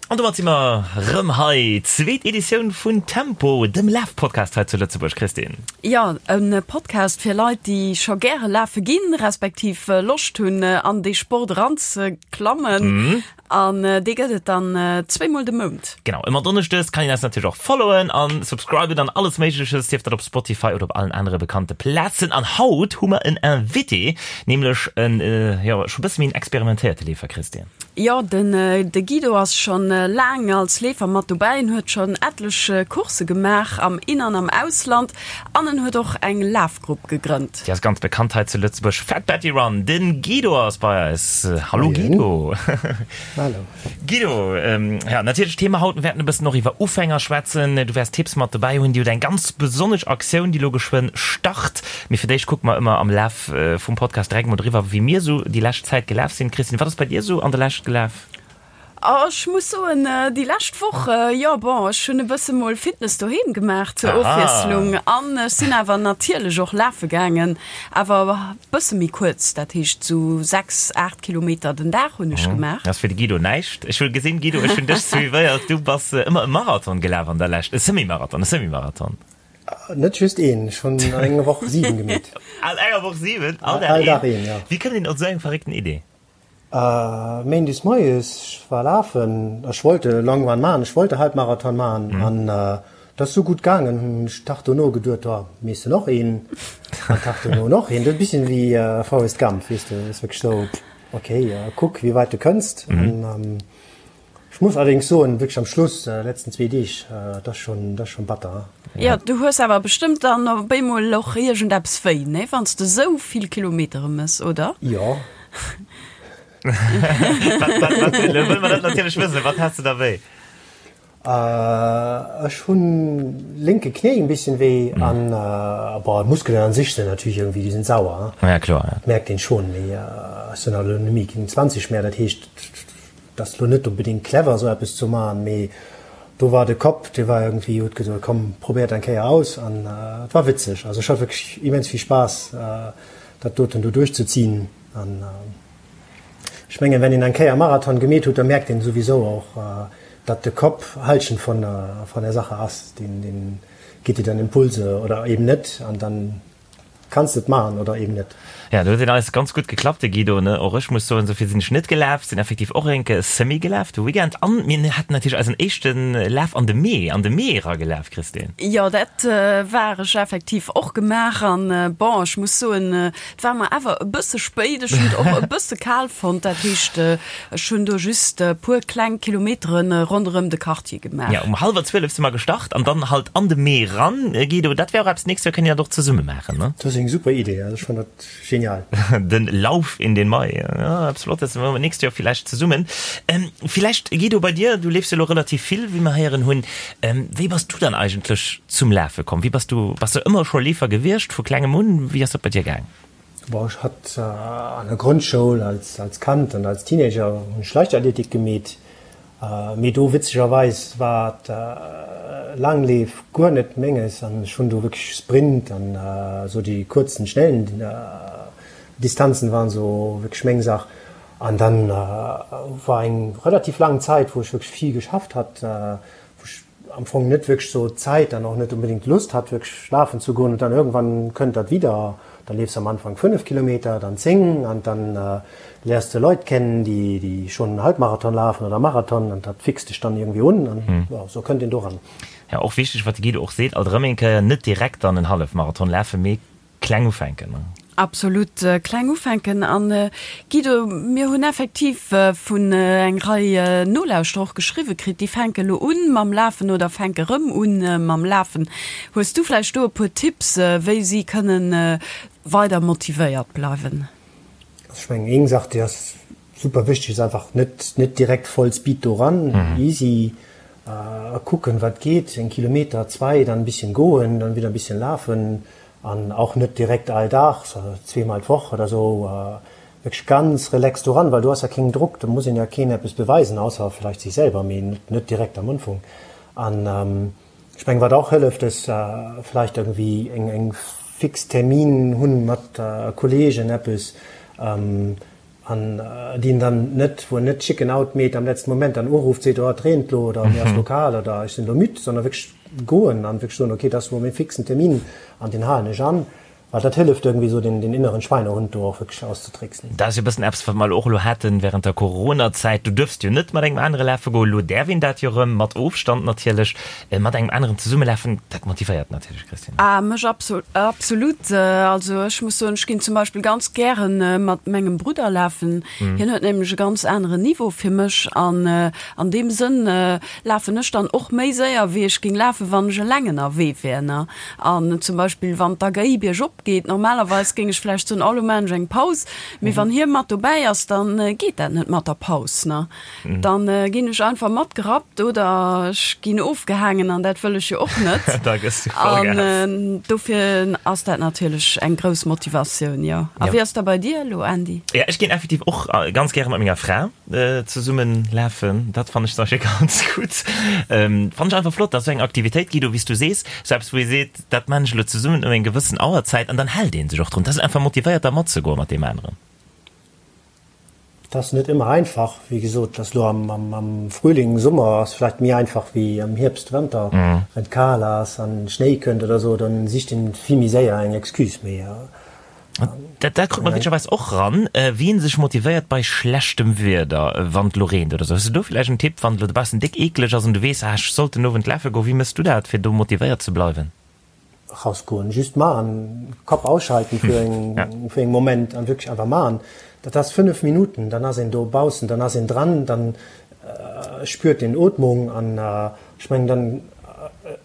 An domat si mer rëm hei, zweet Editioun vun Tempo, dem Laf-Podcast hei zu Lëtzebuerg. Christine. Jo, e Podcast fir Leit, déi scho gäre lafe ginn, respektiv Loscht hunn, an dee Sport eranzeklammen. An dee gëtt et dann zweemol de Mount. Genau, ëmmer donneschdes. Kann een eis natierlech och followen an subscriben an alles Méigleches, sief dat op Spotify oder op allen anere bekannte Plazen. An haut hu mer en Invité, nämlech en, jo, scho bësse méi en experimentéierte Leefer, Christine. Jo, den de Guido ass schon laang als Leefer mat dobäi. En huet schon etlech Coursse gemaach am In an am Ausland an en huet och eng Lafgrupp gegrënnt. Déi ass ganz bekannt hei zu Lëtzebuerg, Fat Betty Run. Den Guido ass bei eis. Hallo Guido. Hallo. Guido, ja natierlech Thema haut, mir wäerten e bëssen och iwwer Ufänger schwätzen. Du wäers Tipps mat dobäi hunn. Dir hutt eng ganz besonnesch Aktioun, déi elo geschwënn start. Mee fir d'éischt kucke mer ëmmer am Laf vum Podcast direkt mol driwwer, wéi mir sou déi lescht Zäit gelaf sinn. Christine, wat ass bei dir sou an der Lescht gelaf? Oh, ech muss soen, déi lescht Woch, jo bon, ech hunn e bësse mol Fitness doheem gemaach zur Ofwiesslung an ech sinn awer natierlech och lafe gaangen, awer e bësse méi kuerz, dat heescht sou 6, 8 Kilometer den Dag hunn ech gemaach. Dat ass fir de Guido näischt. Ech hu gesinn, Guido, ech hunn dech suivéiert, du bass ëmmer e Marathon gelaf an der Lescht, e Semi-Marathon, e Semi-Marathon. Net just een, ech hunn an enger Woch 7 gemeet. An enger Woch 7? All Dag een? All Dag een, ja. Wéi kënnt een op esou eng verréckten Idee? Méindes moies, ech war lafen, ech wollt e Long Run maachen, ech wollt e Halbmarathon maachen an dat ass sou gutt gaangen, hunn ech Tag dono geduet, oh, mees de noch een? An Tag dono noch een. Dat ass e bisschen wéi Forrest Gump, weess de, ass wierklech sou, okay, kuck wéi weit de kënns. An Ech muss allerdéngs soen, wierklech am Schluss, letzten zwee Deeg, dat ass schon, dat ass schon batter. Jo, du hues awer bestëmmt dann op eemol och iergendeppes wéi, nee, wann s de esou vill Kilometere mëss, oder? Jo. Wat, wat, wat, elo wëlle mer dat natierlech wëssen, wat has de da wéi? Ech hunn lénke Knéi en bisschen wéi an, bon, d'Muskelen an sech sinn natierlech iergendwéi, déi sinn sauer, Ja, kloer, ja. Dat mierkt een schon, mee ech sinn halt elo net méi keng 20 mehr, dat heescht, Et ass lo net onbedingt clever esou eppes ze man, mee do war de Kapp, dee war irgendwie, huet gesot, komm probéier et eng Kéier aus an et war witzeg. Also ech hat wierklech immens vill Spaass dat doten do duerchzezinn an ech mengen, wenn een eng Kéier Marathon gemeet huet, da merkt een souwisou och, datt de Kapp Halschent von von der Sache ass, deen deen gitt dir dann Impulse oder eben net an dann Kanns de et maachen oder eben net. Ja, do huet en eis ganz gutt geklappt, de Guido, ne? Och ech muss soen, esou vill sinn ech net gelaf, sinn effektiv och enke Semi gelaf de Weekend. An mir haten natierlech eisen éischte Laf an de Mee, an de Mee era gelaf, Christine. Jo, dat war ech effektiv och gemaach. An bon, ech muss soen, et war mer awer e bësse spéit. Ech hunn et och e bësse kal fonnt. Dat heescht, ech hunn do just e puer kleng Kilometere ronderëm de Quartier gemaach. Ja, um hallwer 12 si mer gestart an dann halt an de Mee ran, Guido. Dat wär och eppes, d'nächst Joer kënne mir dat och zesumme maachen, ne? Dat ass eng super Idee, also ech fannen dat genial. Den Lauf in den Mai, ja, eppes Flottes, maache mer d'nächst Joer villäicht zesummen. Villäicht, Guido, bei dir, du leefs jo elo relativ vill, wéi mer héieren hunn. Wéi bass du dann eigentlech zum Lafe komm? Wéi bass du, bass du ëmmer scho Leefer gewiescht, vu klengem un? Wéi ass dat bei dir gaang? Bon, ech hat an der Grondschoul als, als Kand an als Teenager hunn ech Leichtathletik gemeet. Mee do witzegerweis war d'Laangleef guer net menges an ech hunn do wierklech Sprint an esou déi kuerzen, schnellen Distanzen waren esou wierklech meng Sach. An dann war eng relativ laang Zäit, wou ech wierklech vill geschafft hat, wou ech am Fong net wierklech sou Zäit an och net unbedingt Lust hat wierklech lafen ze goen. Und dann irgendwann kënnt dat wieder, dann leefs am Anfang 5 Kilometer, dann 10 an dann léiers de Leit kennen, déi déi schonn Halbmarathon lafen oder Marathon an dat fixt dech dann irgendwie un an jo, sou kënnt een doran. Ja, och wichteg, wat de Guido och seet, alt erëm eng Kéier, net direkt dann en Hallefmarathon lafen, mee Kleng ufänken, ne? Absolut, kleng ufänken. An Guido, mir hunn effektiv vun eng Rei Nolauschterer och geschriwwe kritt, déi fänke lo un mam Lafen oder fänke rëm un mam Lafen. Hues du vläicht do e puer Tipps, wéi si kënnen weider motivéiert bleiwen? Also ech mengen, eng Saach, déi ass super wichteg, ass einfach net, net direkt voll Speed do ran, easy, kucken, wat geet, en Kilometer, zwei, dann e bisschen goen, dann wieder e bisschen lafen an auch net direkt all Dag, zweemal d'Woch oder sou, wierklech ganz relax do ran, well do ass ja keen Drock, do muss een ja keen eppes beweisen, ausser vielleicht sech selwer, mee net direkt am Unfong. An ech mengen, wat och hëlleft, ass vielleicht irgendwie eng, eng fix Termin hunn mat Kollegen, eppes. An déi en dann net, wou en net Chicken out meet am letzten Moment, dann urufft, seet, oh et reent lo oder mir ass lo kal oder ech sinn lo müd, sondern wierklech goen an wierklech soen, okay, dat ass lo mäi fixen Termin an deen halen ech an. Well dat hëlleft irgendwie esou den inneren Schweinehund do och wierklech auszetricksen. Dat ass jo e bëssen eppes, wat mer elo och elo haten während der Coronazäit. Du duerfst jo net mat engem anere lafe goen. Elo däerf een dat jo erëm, mat Ofstand natierlech, mat engem aneren zesumme lafen. Dat motivéiert natierlech, Christine. Ah, mech absolut. Also ech muss soen, ech ginn zum Beispill ganz gären mat mengem Brudder lafen. Hien huet nämlech e ganz aneren Niveau fir mech an an deem Sënn lafen ech dann och méi séier, wéi ech géing lafen, wann ech eleng ënnerwee wär, ne. An zum Beispill wann d'AGI biergop geet, normalerweis géing ech vläicht soen, oh lo maachen ech eng Paus, mee wann hie mat dobäi ass, dann geet dat net mat der Paus, ne? Dann ginn ech einfach matgerappt oder ech ginn ofgehaangen an dat wëll ech jo och net. Da gëss du voll Gas. An dofir ass dat natierlech eng grouss Motivatioun, jo. A wéi ass da bei dir elo, Andy? Jo, ech ginn effektiv och ganz gäre mat menger Fra. Zesummen lafen, dat fannen ech zum Beispill ganz gutt. Fannen ech einfach flott, dass esou eng Aktivitéit Guido, wéi s du sees, sou eppes wou ee seet, dat maan ech elo zesummen ëm eng gewëssen Auerzäit an dann hält ee sech och drun. Dat ass einfach motivéiert da matzegoen mat deem aneren. Et ass net ëmmer einfach, wéi gesot, et ass elo am Frühling, Summer ass vläicht méi einfach wéi am Hierbst, Wanter, wann et kal ass an Schnéi kënnt oder sou, dann sicht een vill méi séier eng Excuse. Mee Dat, dat krut mer witzegerweis och ran, wien sech motivéiert bei schlechtem Wieder, wann et lo reent oder sou. Hues du do villäicht en Tipp, wann et lo dobaussen déck eekleg ass an du weess, ah ech sollt den Owend lafe goen, wéi mëss du dat, fir do motivéiert ze bleiwen? Rausgoen, just maachen, Kapp ausschalten fir eng, fir eng Moment an wierklech einfach maachen. Dat ass 5 Minuten, dann ass een dobaussen, dann ass een dran, dann spürt een Ootmung an Ech mengen dann,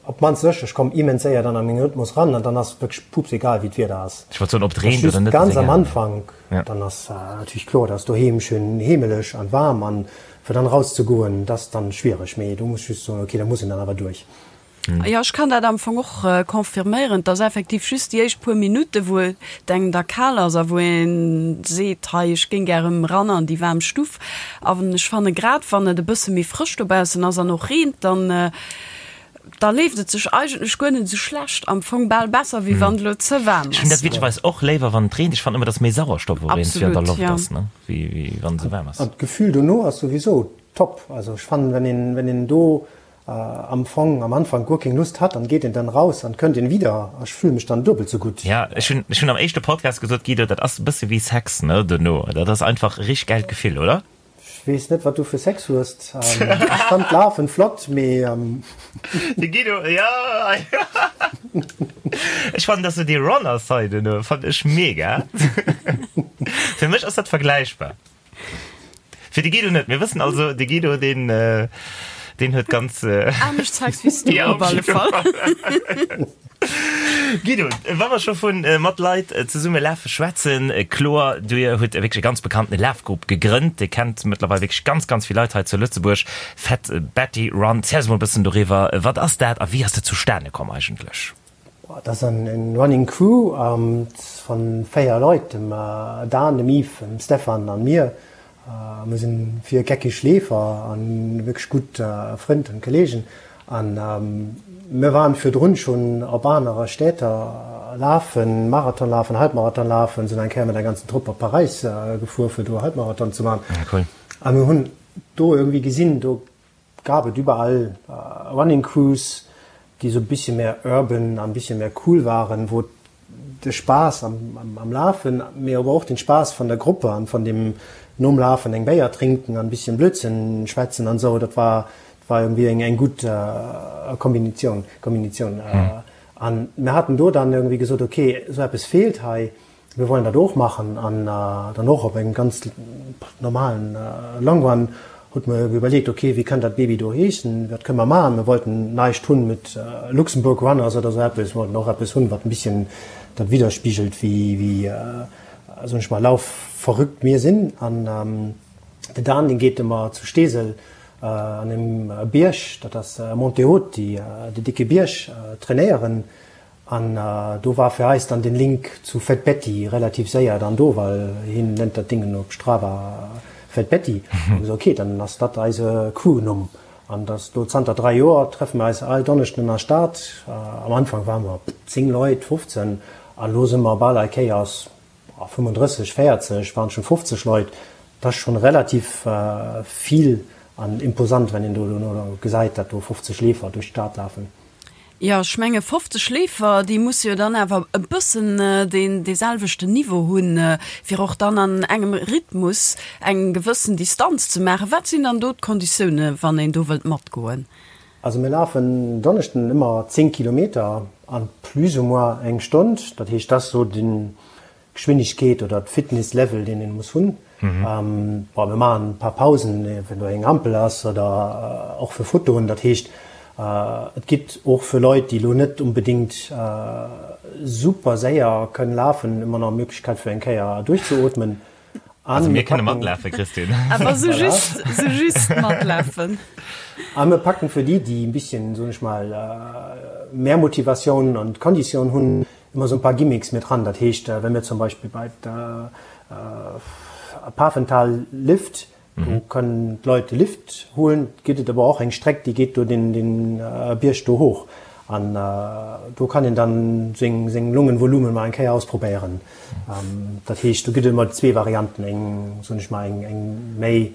op d'mannst ech, ech komm immens séier dann a meng Rhythmus ran an dann ass et wierklech pups egal wéi d'Wieder ass. Ech wollt soen, ob et reent oder net, ass egal. Ganz am Anfank, dann ass natierlech kloer, dass doheem schön heemeleg an waarm an fir dann raus ze goen, dat ass dann schwiereg, mee do muss ech just soen, ok, da muss een dann awer duerch. Jo, ech kann dat am Fong och confirméieren. Et ass effektiv just déi éischt puer Minutte wou et engem da kal ass a wou ee seet, hei ech géing gär erëm ran an déi waarm Stuff. An ech fanne grad wann et e bësse méi frësch dobaussen ass an och reent, dann da leeft et sech eigentlech guer net esou schlecht, am Fong bal besser wéi wann et elo ze waarm Ech hunn dat ass. witzegerweis och léiwer wann et reent. Ech fannen ëmmer, dass méi Sauerstoff och iergendwéi an der Absolut, Loft ja. ass, ne, wéi wéi wann et esou waarm ass. An d'Gefühl dono ass souwisou top. Also ech fannen, wenn een wenn een do am Fong am Anfang guer keng Lust hat, dann geet een dann raus an kënnt een wieder a ech fühle mech dann duebel sou gutt. Ja, ech hunn, ech hunn am éischte Podcast gesot, Guido, dat ass e bësse wéi Sex, ne, dono. Dat ass einfach e richteg gäilt Gefill, oder? Ech weess net, wat du fir Sex hues. Ech fannt d'Lafen flott, mee. De Guido, ja, ech fannen, dass du déi Runner-Side dono fannt ech mega. Fir mech ass dat vergläichbar. Fir de Guido net. Mir wëssen also, de Guido, deen, deen huet ganz. Anescht Sex wéi s du, Ja, op alle Fall. Guido, wa mer scho vu mat Leit zesumme lafe schwätzen, kloer, du hutt wierklech e ganz bekannte Lafgrupp gegrënnt, dee kennt mëttlerweil wierklech ganz, ganz vill Leit hei zu Lëtzebuerg, Fat Betty Run. Ziel eis mol e bëssen doriwwer, wat ass dat a wéi ass dat zustane komm eigentlech? Dat ass en Running Crew van 4 Leit, dem Dan, dem Yves, dem Stefan an mir. Mir sinn 4 geckig Leefer an wierklech gutt Frënd an Kollegen. An mir waren virdrun schon op anere Städter lafen, Marathon lafen, Halbmarathon lafen, sinn eng Kéier mat der ganzen Trupp op Paräis gefuer fir do Halbmarathon ze man. A mir hunn do irgendwie gesinn, do gab et überall Running Crews, déi sou bisschen mehr urban an bisschen mehr cool waren, wou de Spaass am Lafen, mee awer och den Spaass van der Gruppe an van dem nom Lafen eng Béier trinken an bisschen Blödsinn schwätzen an sou, dat war war irgendwie eng eng gutt Kombinitioun Kombinitioun. An mir haten do dann irgendwie gesot, ok, sou eppes feelt hei, Mir wollen dat och machen an dann och op engem ganz normalen Long Run hutt mer iwwerleet, ok, wéi kann dat Baby do heeschen, wat kënne mer maachen. Mir wollten näischt hunn mit Luxembourg Runners oder esou eppes, mir wollten och eppes hunn, wat en bisschen dat widderspigelt, wéi, wéi, soen ech mal, laufverrückt mir sinn. An de Dan, deen geet ëmmer zu Steesel an engem Bierg, dat ass Monte Haut, déi, dee dicke Bierg, trainéieren. An do war fir eis dann den Link zu Fat Betty relativ séier dann do, well hien nennt dat Dingen op Strava Fat Betty. Hu gesot, ok, dann ass dat eise Crewnumm. An dat do zanter 3 Joer treffe mer eis all Donneschden an der Stad. Am Anfang ware mer 10 Leit, 15, an elo si mer bal all Kéiers 35, 40, waren schon 50 Leit. Dat ass schonn relativ vill an imposant, wenn een do dono gesäit, datt do 50 Leefer duerch d'Stad lafen. Jo, ech menge 50 Leefer, déi musse jo dann awer e bëssen deen deeselwechten Niveau hunn, fir och dann an engem Rhythmus eng gewëssen Distanz ze maachen. Wat sinn dann do d'Konditioune wann een do wëllt matgoen? Also mir lafen Donneschden ëmmer 10 Kilometer an plus ou moins eng Stonn. Dat heescht, dat ass esou den Geschwindegkeet oder d'Fitness Level deen een muss hunn. Bon mir maachen e paar Pausen wenn do eng Ampel ass oder och fir Fotoen. Dat heescht et gitt och fir Leit déi elo net unbedingt super séier kënnen lafen ëmmer nach Möglichkeit fir eng Kéier duerchzeootmen. Also mir kënne matlafe Christine. Awer sou just, sou just matlafen. A mir packen fir déi déi e bisschen soen ech mal mehr Motivatioun an Konditioun hunn Ëmmer esou e paar Gimmicks mit dran. Dat heescht, wa mir zum Beispill bei der Pafental Lift, do kënnen d'Leit de Lift huelen, gëtt et awer och eng Streck, déi geet do den Bierg do hoch. An do kann een dann seng seng Lungenvolumen mol eng Kéier ausprobéieren. Dat heescht, do gëtt et ëmmer zwee Varianten, eng, soen ech mal, eng eng méi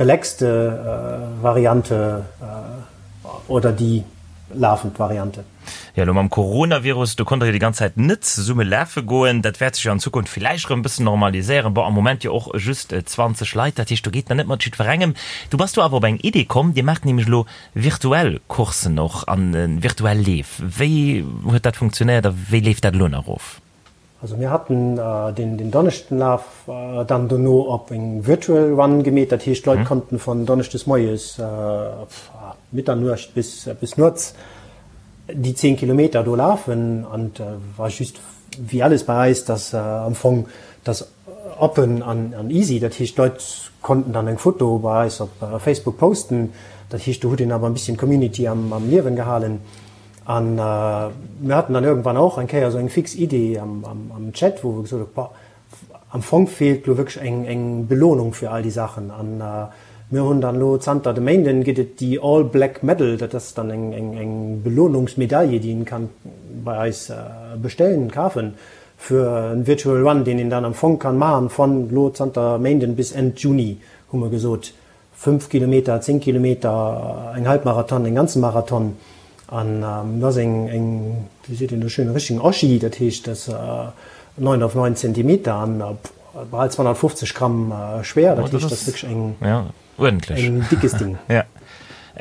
relaxte Variante oder déi lafend Variante. Jo, elo mam Coronavirus, do konnt der jo déi ganz Zäit net zesumme lafe goen. Dat wäert sech jo an Zukunft villäicht erëm e bëssen normaliséieren. Bon, am Moment jo och just 20 Leit, dat heescht, do geet nach net mat jiddwerengem. Du bass do awer op eng Idee komm, Dir maacht nämlech elo virtuell Courssen och an virtuell Leef. Wéi huet dat funktionéiert a wéi leeft dat elo nach of? Also mir haten den Donneschdenlaf dann dono op eng Virtual Run gemeet, dat heescht d'Leit konnten von Donneschdes moies Mitternuecht bis bis nuets déi 10 Kilometer do lafen an war just wéi alles bei eis, dass am Fong dass open an an easy, dat heescht d'Leit konnten dann eng Foto bei eis op Facebook posten, dat heescht do huet een awer e bisschen d'Community am am Liewen gehalen. An mir haten dann irgendwann och eng Kéier esou eng fix Idee am Chat, wou wir gesot hu, boah, am Fong feelt lo wierklech eng, eng Belohnung fir all déi Saachen. An mir hunn dann elo zanter de Méinden gëtt et déi All Black Medal, dat ass dann eng, eng, eng Belohnungsmedaille, déi een kann bei eis bestellen, kafen, fir en Virtual Run, deen een dann am Fong kann maachen von lo zanter Méinden bis Enn Juni, hu mer gesot. 5 Kilometer, 10 Kilometer, eng Halbmarathon, en ganze Marathon an dat ass eng, eng, wéi seet een do schön, e richtigen Oschi, dat heescht, dat ass 9 auf 9 Zentimeter an bal 250 Gramm schwéier, dat heescht, dat ass wierklech eng, en dickes Ding. Ja,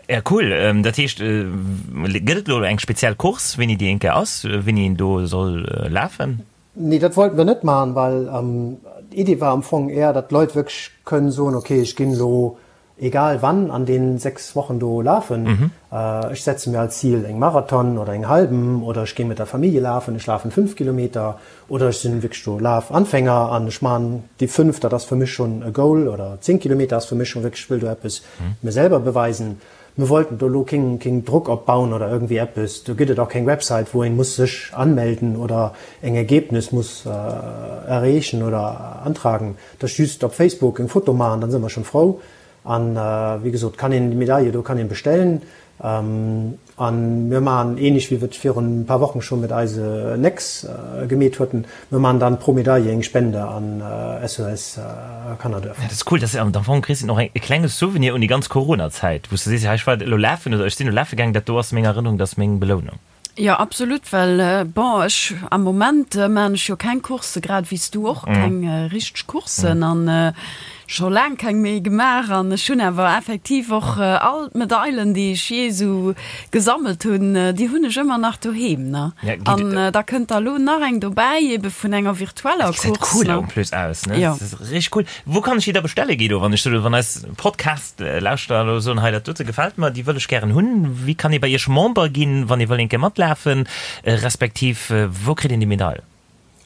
ja cool. Dat heescht, gëtt et elo eng speziell Course, wéini déi eng Kéier ass, wéini een do soll lafen? Nee, dat wollten wir net maachen, well d'Idee war am Fong eher, datt d'Leit wierklech kënnen soen, okay, ech ginn elo egal wann an deenen 6 Wochen do lafen, ech setze mir als Zil eng Marathon oder eng halben oder ech géi mat der Famillje lafen, ech lafen 5 Kilometer oder ech sinn wierklech do Lafanfänger an ech maachen déi 5, dat ass fir mech schonn e Goal oder 10 Kilometer ass fir mech schonn wierklech, ech wëll do eppes mir selwer beweisen. Mir wollten do elo keng keng Drock opbauen oder irgendwie eppes. Do gëtt et och keng Website, wou een muss sech anmelden oder eng Ergebnis muss erreechen oder antragen. Dat ass just op Facebook eng Foto maachen, dann si mer schon frou. An wéi gesot kann een déi Medaille do kann een bestellen. An mir maachen ähnlech wéi wir et virun e paar Wochen schon mit eise Nex gemeet hueten, mir maachen dann pro Medaille eng Spende an SOS Kannerduerf. Dat ass cool, dat ass am Fong, Christine, och e klenge Souvenir un déi ganz Corona-Zäit, wou s de sees, hei ech war elo lafen oder ech sinn elo lafe gaangen, dat do ass meng Erënnerung, dat ass meng Belounung. Jo, absolut, well bon, ech am Moment maachen ech jo keng Coursse, grad wéi s du och keng richteg Courssen an scho laang keng méi gemaach an ech hunn awer effektiv och all d'Medailen, déi ech jee esou gesammelt hunn, déi hunn ech ëmmer nach doheem, ne? An da kënnt der elo nach eng dobäi, ebe vun enger virtueller Course. Dat gesäit cool en plus aus, ne? Jo. Dat ass richteg cool. Wou kann ech déi da bestelle, Guido, wann ech soen, wann eis Podcast-Lauschterer elo soen, hei dat dote gefält mer, déi wëll ech gären hunn. Wéi kann ee bei Iech Member ginn, wann ee wëll eng Kéier matlafen, respektiv wou kritt een déi Medail?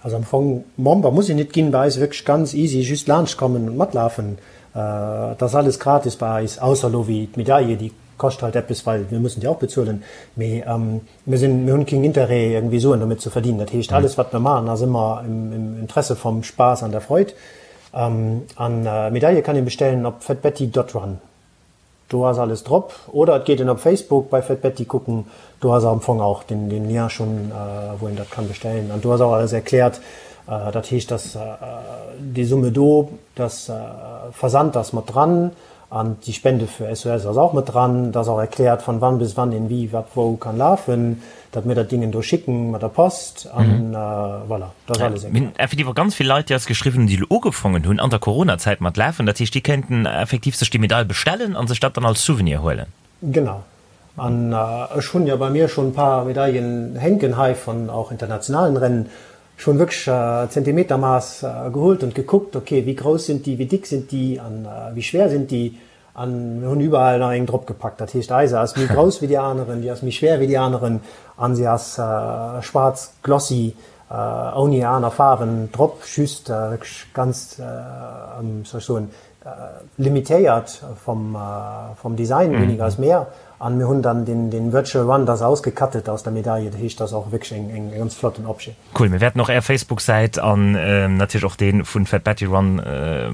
Also am Fong Member muss een nit ginn bei eis, wierklech ganz easy, just laanscht kommen und matlafen. Et ass alles gratis bei eis, ausser elo wéi d'Medaille, déi kascht halt eppes, well mir mussen déi och bezuelen. Mee mir sinn, mir hunn keen Interêt irgendwie Suen domat ze verdienen. Dat heescht alles wat mir maachen ass ëmmer im Interesse vom Spaß an der Freud. An Medaille kann een bestellen op fetbetty.run. Do ass alles drop. Oder et geet een op Facebook bei Fetbetty kucken, do ass am Fong auch den den Lien schon wou een dat kann bestellen an do ass auch alles erklärt. Dat heescht, dass déi Summe do, dass Versand ass mat dran an déi Spende fir SOS ass och mat dran. Et ass och erkläert, von wann bis wann een wie, wat, wou kann lafen, datt mir dat Dingen do schicken mat der Post an voilà, dat ass alles erkläert. Mir hunn effektiv och ganz vill Leit, déi eis geschriwwen hunn, déi elo ugefongen hunn an der Coronazäit mat lafen. Dat heescht, déi kéinten effektiv sech déi Medail bestellen a sech dat dann als Souvenir huelen. Genau. An ech hunn jo bei mir schonn e paar Medaillen hänken hei von auch internationalen Rennen. Ech hunn wierklech Zentimetermaß geholt und gekuckt, ok, wéi grouss sind déi, wéi dick sind déi an wéi schwer sind déi. An mir hunn überall nach eng drop gepackt. Dat heescht, eise ass méi grouss wéi déi aneren, déi ass méi schwer wéi déi aneren an se ass schwaarz glossy ouni aner Faarwen drop, just wierklech ganz, wéi soll ech soen, limitéiert vom vom Design, weniger ist mehr, an mir hunn dann den den Virtual Run das ausgecuttet aus der Medaille, dat heescht das ass och wierklech eng eng ganz flotten Objet. Cool, mir wäerten och är Facebook-Säit an natierlech och dee vun Fat Betty Run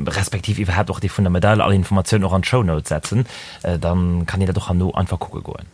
respektiv iwwerhaapt och dee vun der Medaille, all Informatiounen och an d'Show Notes setzen, dann kann een dat och herno einfach kucke goen.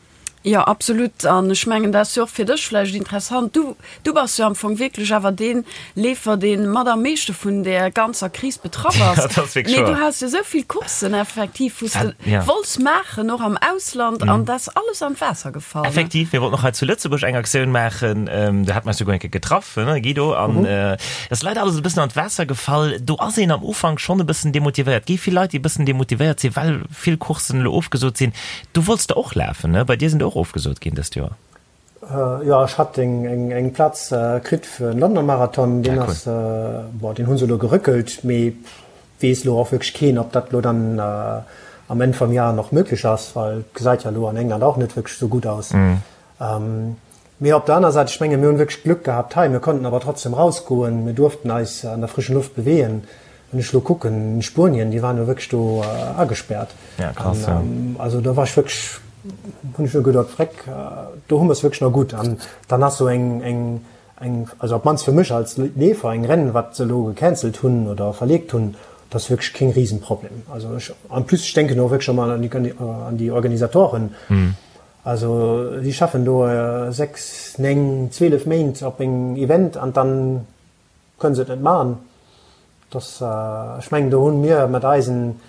Jo, absolut. An ech mengen, dat ass jo och fir dech vläicht interessant. Du, du bass jo am Fong wierklech awer dee Leefer, dee mat am meeschte vun där ganzer Kris betraff ass. Dat ass wierklech Mee du wouer. has jo esou vill Courssen effektiv, wou s de Ja. wollts maachen, och am Ausland, an dat ass alles an d'Waasser gefall, ne? Effektiv, mir wollten och hei zu Lëtzebuerg eng Aktioun maachen. Do hate mer eis souguer eng Kéier getraff, ne, Guido? An et ass leider alles e bëssen an d'Waasser gefall. Do ass een am Ufank schonn e bëssen demotivéiert. Et gi vill Leit, déi e bëssen demotivéiert sinn, well vill Courssen elo ofgesot sinn. Du wollts de och lafen, ne? Bei dir sinn der och ofgesot ginn dëst Joer. Jo, ech hat eng Plaz kritt fir den Londoner Marathon. Deen ass, bon, deen hu se elo gerëckelt, mee weess elo och wierklech keen, ob dat elo dann am Enn vum Jar nach möglech ass, well et gesäit jo elo an England och net wierklech esou gutt aus. Mee op der aner Säit, ech menge mir hunn wierklech Glück gehabt hei, mir konnten awer trotzdem rausgoen, mir duerften eis an der frischen Luft bewegen. Wann ech elo kucken, Spuenien, déi waren jo wierklech do agespärt. Ja, krass, ja. Also do war ech wierklech, hunn ech nur geduet, Vreck, do hu mer es wierklech nach gutt. An dann ass sou eng, eng, eng, also op d'mannst fir mech als Leefer, eng Rennen, wat se elo gecancelt hunn oder verleegt hunn, dat ass wierklech keen Riesenproblem. Also ech, en plus, ech denken och wierklech ëmmer an déi Organisatoren. Also si schaffen do 6, 9, 12 Méint op engem Event an dann kënne se et net maachen. Dass, ech mengen do hunn mir mat eisen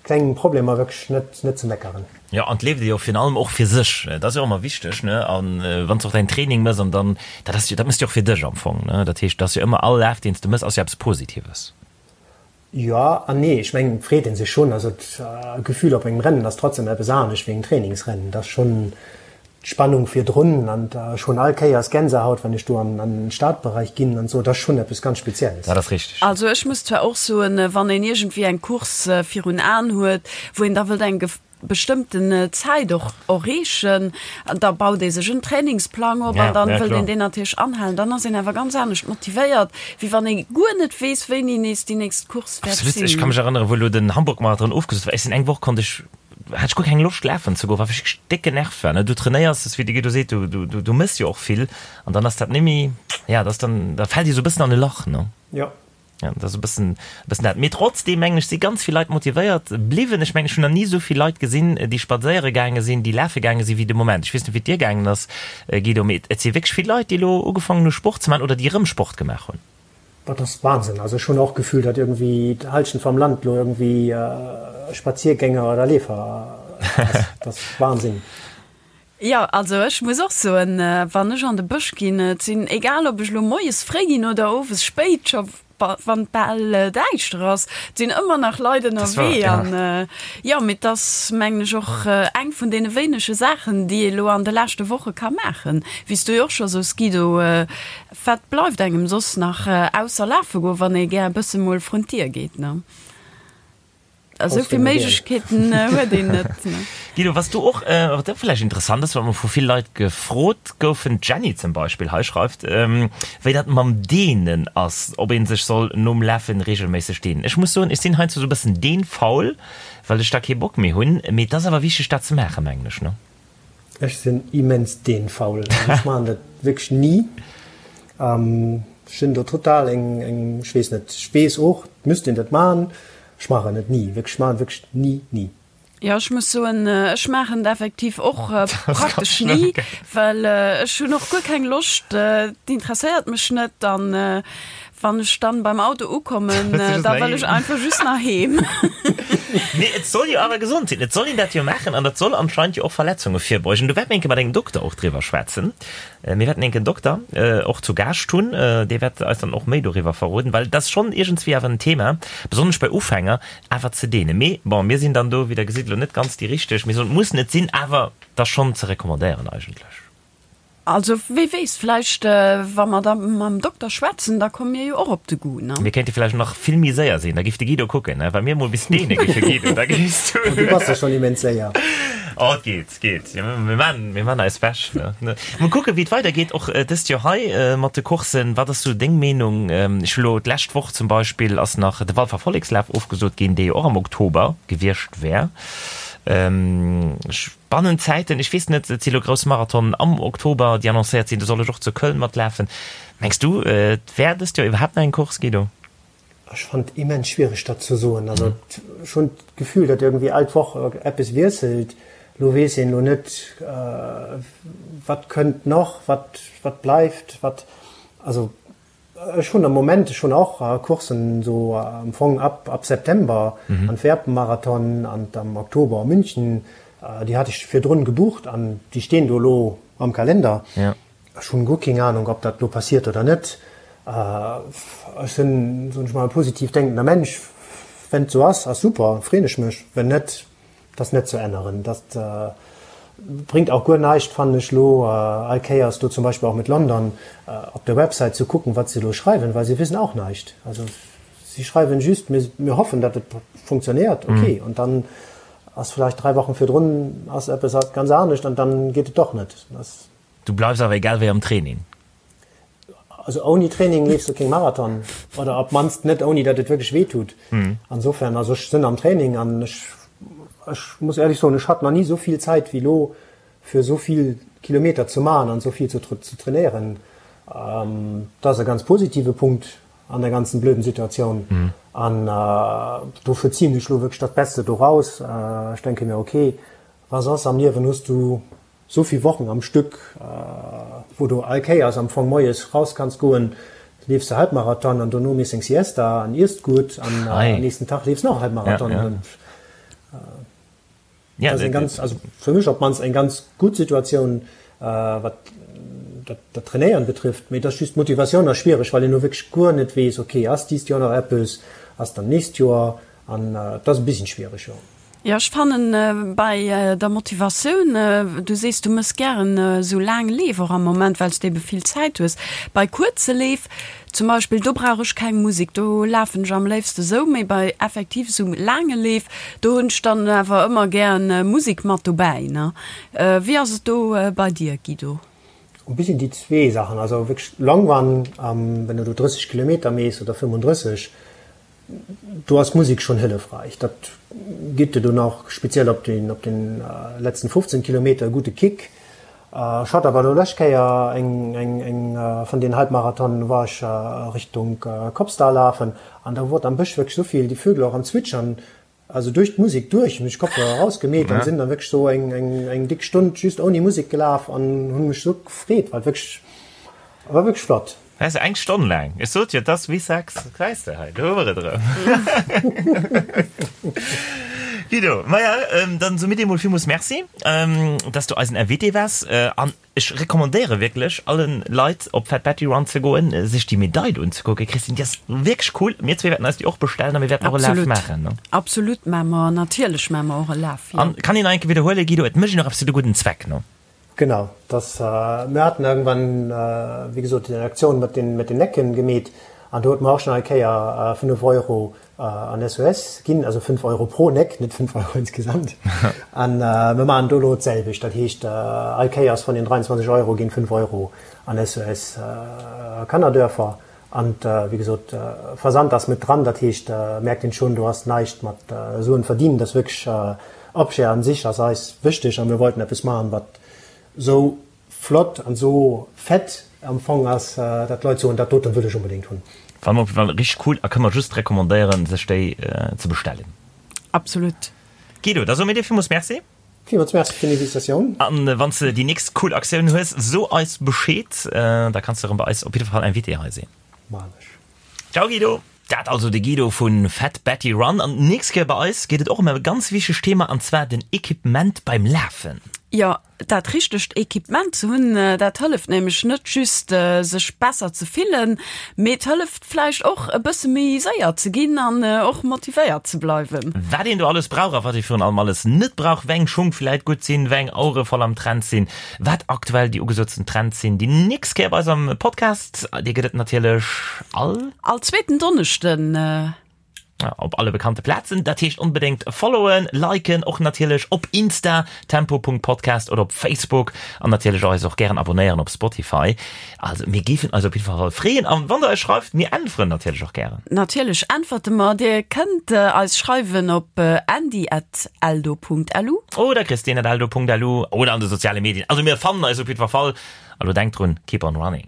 klengen Problemer wierklech net net ze meckeren. Jo, an et leeft ee jo virun allem och fir sech, dat ass jo och ëmmer wichteg, ne, an wann s de och däin Training mëss an dann, dat ass jo, dat mëss de jo och fir dech am Fong, ne, dat heescht, et ass jo ëmmer all Laf deen s de mëss ass jo eppes Positives. Jo an nee. Ech mengen, et freet ee sech schonn. Also d'Gefühl op engem Rennen ass trotzdem eppes anescht wéi engem Trainingsrennen. Et ass schonn d'Spannung virdrun an ech hunn all Kéiers Gänsehaut, wann ech do an den Startbereich ginn an esou. Et ass schonn eppes ganz Spezielles. Dat ass richteg. Also ech muss zwar och soen, wann een iergendwéi eng Course virun Aen huet, wou een da wëllt eng bestëmmten Zäit och erreechen, da baut ee sech en Trainingsplang op an dann wëllt een deen natierlech anhalen. Dann ass een awer ganz anescht motivéiert, wéi wann ee guer net weess, wéini nees déi nächst Course wäert Absolut. Ech sinn. ka mech erënneren, wou elo den Hamburg-Marathon ofgesot war, ech sinn eng Woch konnt ech, hat ech guer keng Loscht lafen ze goen, well ech wierklech déck genervt war, ne. Du trainéiers, wéi de Guido seet, du, du, du mëss jo och vill an dann ass dat net méi, ja, dat ass dann, da fält ee sou e bëssen an e Lach, ne. Jo. Ja, dat ass e bëssen, e bëssen dat. Mee trotzdeem, mengen ech, si ganz vill Leit motivéiert bliwwen. Ech mengen, ech hunn nach ni esou vill Leit gesinn, déi spadséiere gaange sinn, déi lafe gaange sinn, wéi de Moment. Ech weess net, wéi et dir gaangen ass, Guido, mee et si wierklech vill Leit, déi elo ugefaangen hu Sport ze maachen oder déi erëm Sport gemaach hunn. Dat ass Wahnsinn. Also ech hunn och d'Gefühl, datt iergendwéi d'Hallschent vam Land elo iergendwéi Spaziergänger oder Leefer ass. Dat ass Wahnsinn. Jo, also ech muss och soen, wann ech an de Bësch ginn, et sinn, egal ob ech elo moies fréi ginn oder owes spéit, scho wann et bal däischter ass, et sinn ëmmer nach Leit ënnerwee. An jo, mee et ass, mengen ech, och eng vun deene wéinege Saachen, déi ee elo an de leschte Woche ka maachen. Wéi s du jo och scho sous, Guido, wat bleift engem soss nach ausser lafe goen, wann ee gär e bësse mol vrun d'Dier geet, ne? Esou vill Méiglechkeeten huet een net. Guido, was du och, wat och vläicht interessant ass, wat mer vu vill Leit gefrot goufen, d'Jenny zum Beispill hei schreift, wéi dat mam Dehnen ass, ob ee sech soll nom Lafen reegelméisseg dehnen. Ech muss soen, ech sinn heiansdo esou e bëssen dehnfaul, well ech da kee Bock méi hunn, mee et ass awer wichteg dat ze maachen, mengen ech, ne? Ech sinn immens deenfaul, also ech maachen dat wierklech ni. Ech sinn do total eng, eng, ech weess net, ech weess och, et müsst een dat maachen, ech maachen et ni, wierklech, ech maachen et wierklech ni, ni. Jo, ech muss soen, ech maachen et effektiv och praktesch ni, well ech hunn och guer keng Loscht, et interesséiert mech net an. Wann ech dann beim Auto ukommen, da wëll ech einfach just nach heem. Mee et soll jo awer gesond sinn, et soll een dat jo maachen an dat soll anscheinend jo och Verletzunge virbeugen. Do wäerte mir enke mat engem Dokter och driwwer schwätzen. Mir wäerten enken Dokter och zu Gaascht hunn, dee wäert eis dann och méi doriwwer verroden, well et ass schonn iergendswéi awer en Thema, besonnesch bei Ufänger, awer ze deenen. Mee bon, mir sinn dann do, wéi Der gesitt, elo net ganz déi Richteg. Mir soen, et muss net sinn, awer et ass schonn ze recommandéieren eigentlech. Also wee weess, vläicht wa mer da mam Dokter schwätzen, da komme mir jo och op de Goût, ne? Mir kéinte vläicht nach vill méi séier sinn, da giff de Guido kucken, ne? Wa mir mol bis deene giffe Guido, da géifs du. Du bass jo schonn immens séier. Oh, et geet, et geet. Jo, mir maan, mir maan eis Wäsch, ne? Mol kucken, wéi et weidergeet, och dëst Joer hei mat de Courssen. Wat ass sou deng Meenung? Ech hu lo d'lescht Woch zum Beispill ass nach de Walfer Vollekslaf ofgesot ginn, dee jo och am Oktober gewiescht wär. Ech. Bannent Zäiten, ech weess net, et si lo grouss Marathonen am Oktober, déi annoncéiert sinn, do soll ech och zu Köln matlafen. Mengs du, et wär dëst Joer iwwerhaapt nach eng Course, Guido? Ech fannen et immens schwiereg, dat ze soen. Also ech hunn d'Gefühl, datt iergendwéi all d'Woch eppes wiesselt. Lo weess een elo net, wat kënnt nach, wat wat bleift, wat, also Ech hunn am Moment, ech hunn och Courssen esou am Fong ab ab September, Antwerpen-Marathon an am Oktober München, déi hat ech virdrun gebucht an déi stinn do elo am Kalender. Ech hunn guer keng Ahnung, ob dat elo passiert oder net. Ech sinn, soen ech mol, e positiv denkender Mensch. Wenn et sou ass, ass super, freen ech mech. Wenn net, Dat ass net ze änneren. Dat bréngt och guer näischt, fannen ech elo, all Kéiers do zum Beispill och mit London op der Website ze kucken, wat se elo schreiwen, well se wissen auch näischt. Also si schreiwen just, mir, mir hoffen, datt et funktionéiert, okay, an dann ass vläicht 3 Wochen virdrun ass eppes ganz anescht an dann geet et doch net. Du bleifs awer egal wéi am Training? Also ouni Training leefs du keng Marathon oder op d'mannst net ouni datt et wierklech wéi tut. Insofern, also ech sinn am Training an ech ech muss éierlech soen, ech hat nach ni esou vill Zäit wéi elo fir esou vill Kilometer ze maachen an esou vill ze ze trainéieren. Dat ass e ganz positive Punkt an der ganzen blöden Situatioun an dofir zien ech elo wierklech dat Beste doraus. Ech denke mir, okay, wa soss am Liewen hues du Sou vill Wochen am Stück, wou du all Kéiers am Fong moies raus kanns goen, leefs de Halbmarathon an dono mees eng Siesta an iesst gutt an am nächsten Tag leefs nach e Halbmarathon. Dat ass eng ganz, also fir mech op d'mannst eng ganz gutt Situatioun, wat dat Trainéieren betrifft. Mee et ass just d'Motivatioun ass schwiereg, well een elo wierklech guer net weess, ok, ass dist Joer nach eppes, ass dann nächst Joer an dat ass e bisschen schwiereg, jo. Jo, ech fannen bei der Motivatioun, du sees du mëss gären esou laang Leef och am Moment, well s de ebe vill Zäit hues. Bei kuerze Leef zum Beispill, do brauch ech keng Musek, do lafen ech am léifste sou, mee bei effektiv esou laange Leef, do hunn ech dann awer ëmmer gären Musek mat dobäi, ne. Wéi ass et do bei dir, Guido? E bisschen déi zwee Saachen, also wierklech Long Run, wenn du do 30 Kilometer mees oder 35, Do ass d'Musek schonn hëllefreich. Dat gitt dir dunn och speziell op den op den letzten 15 Kilometer e gudde Kick. Ech hat awer elo lescht Kéier eng eng eng vun den Halbmarathonen, war ech Richtung Kopsdall lafen an da wor am Bësch wierklech esou vill déi Vögel och am Zwitschern, also duerch d'Musek duerch hunn ech Kopfhörer erausgemeet an sinn dann wierklech sou eng eng eng dick Stonn just ouni Musek gelaf an hunn mech sou gefreet, well wierklech war wierklech flott. Weess de, eng Stonn laang. Ech sot jo, et ass wéi Sex. Gesäis de, hei, do hu mer et erëm. Guido, maja, dann soe mir dir emol villmools Merci, dass du eisen Invité waars. An ech recommandéiere wierklech allen Leit, op Fat Batty Run ze goen, sech déi Medail unzekucken. Christine, déi ass wierklech cool. Mir zwee wäerten eis déi och bestellen a mir wäerten och e Laf maachen, ne? Absolut maache mer, natierlech maache mer och e Laf, jo. An kann een nach eng Kéier widderhuelen, Guido, et mécht een och eppes fir de gudden Zweck, ne? Genau, dass mir haten irgendwann, wéi gesot, déi Aktioun mat den, mat den Necken gemeet an do huet mer och schon eng Kéier 5 Euro an SOS ginn, also 5 Euro pro Neck, net 5 Euro insgesamt. An mir maachen do elo d'selwecht, dat heescht all Kéiers vun den 23 Euro ginn 5 Euro an SOS Kannerdörfer. An wéi gesot, Versand ass met dran, dat heescht merkt een schon, do ass näischt mat Suen verdienen, dat ass wierklech Objet an sich ass eis wichteg a mir wollten eppes maachen, wat sou flott an sou fett am Fong ass, dat d'Leit soen, dat doten wëll ech onbedéngt hunn. Fannen op jeden Fall richteg cool a kënne mer just recommandéieren sech déi ze bestellen. Absolut. Guido, da soe mir dir villmools Merci. Villmools Merci fir d'Invitatioun. An wann s de déi nächst cool Aktioun hues, so eis Bescheed, da kanns de erëm bei eis op jidde Fall Invité hei sinn. Maan ech. Ciao Guido! Dat also de Guido vu Fat Betty Run. An d'nächst Kéier bei eis geet et och ëm e ganz wichtegt Thema, an zwar den Equipement beim Lafen. Jo, dat richtegt Equipement ze hunn, dat hëlleft nämlech net just sech besser ze fillen, mee et hëlleft vläicht och e bësse méi séier ze ginn an och motivéiert ze bleiwen. Wat een do alles brauch a wat ee virun allem alles net brauch, wéi eng Schung vläit gutt sinn, wéi eng Auere voll am Trend sinn, wat aktuell déi ugesootsten Trends sinn, déi nächst Kéier bei eis am Podcast. Dee gëtt et natierlech all. All zweeten Donneschden. Op alle bekannte Plazen. Dat heescht onbedéngt followen, liken, och natierlech op Insta, tempo.podcast oder op Facebook an natierlech eis och gären abonnéieren op Spotify. Also mir géifen eis op jidder Fall freeën an wann der eis schreift, mir äntweren natierlech och gären. Natierlech äntwerte mer. Dir kënnt eis schreiwen op andy@eldo.lu. Oder christine@eldo.lu oder an de soziale Medien. Also mir fannen eis op jidder Fall. A lo denkt drun, keep on running.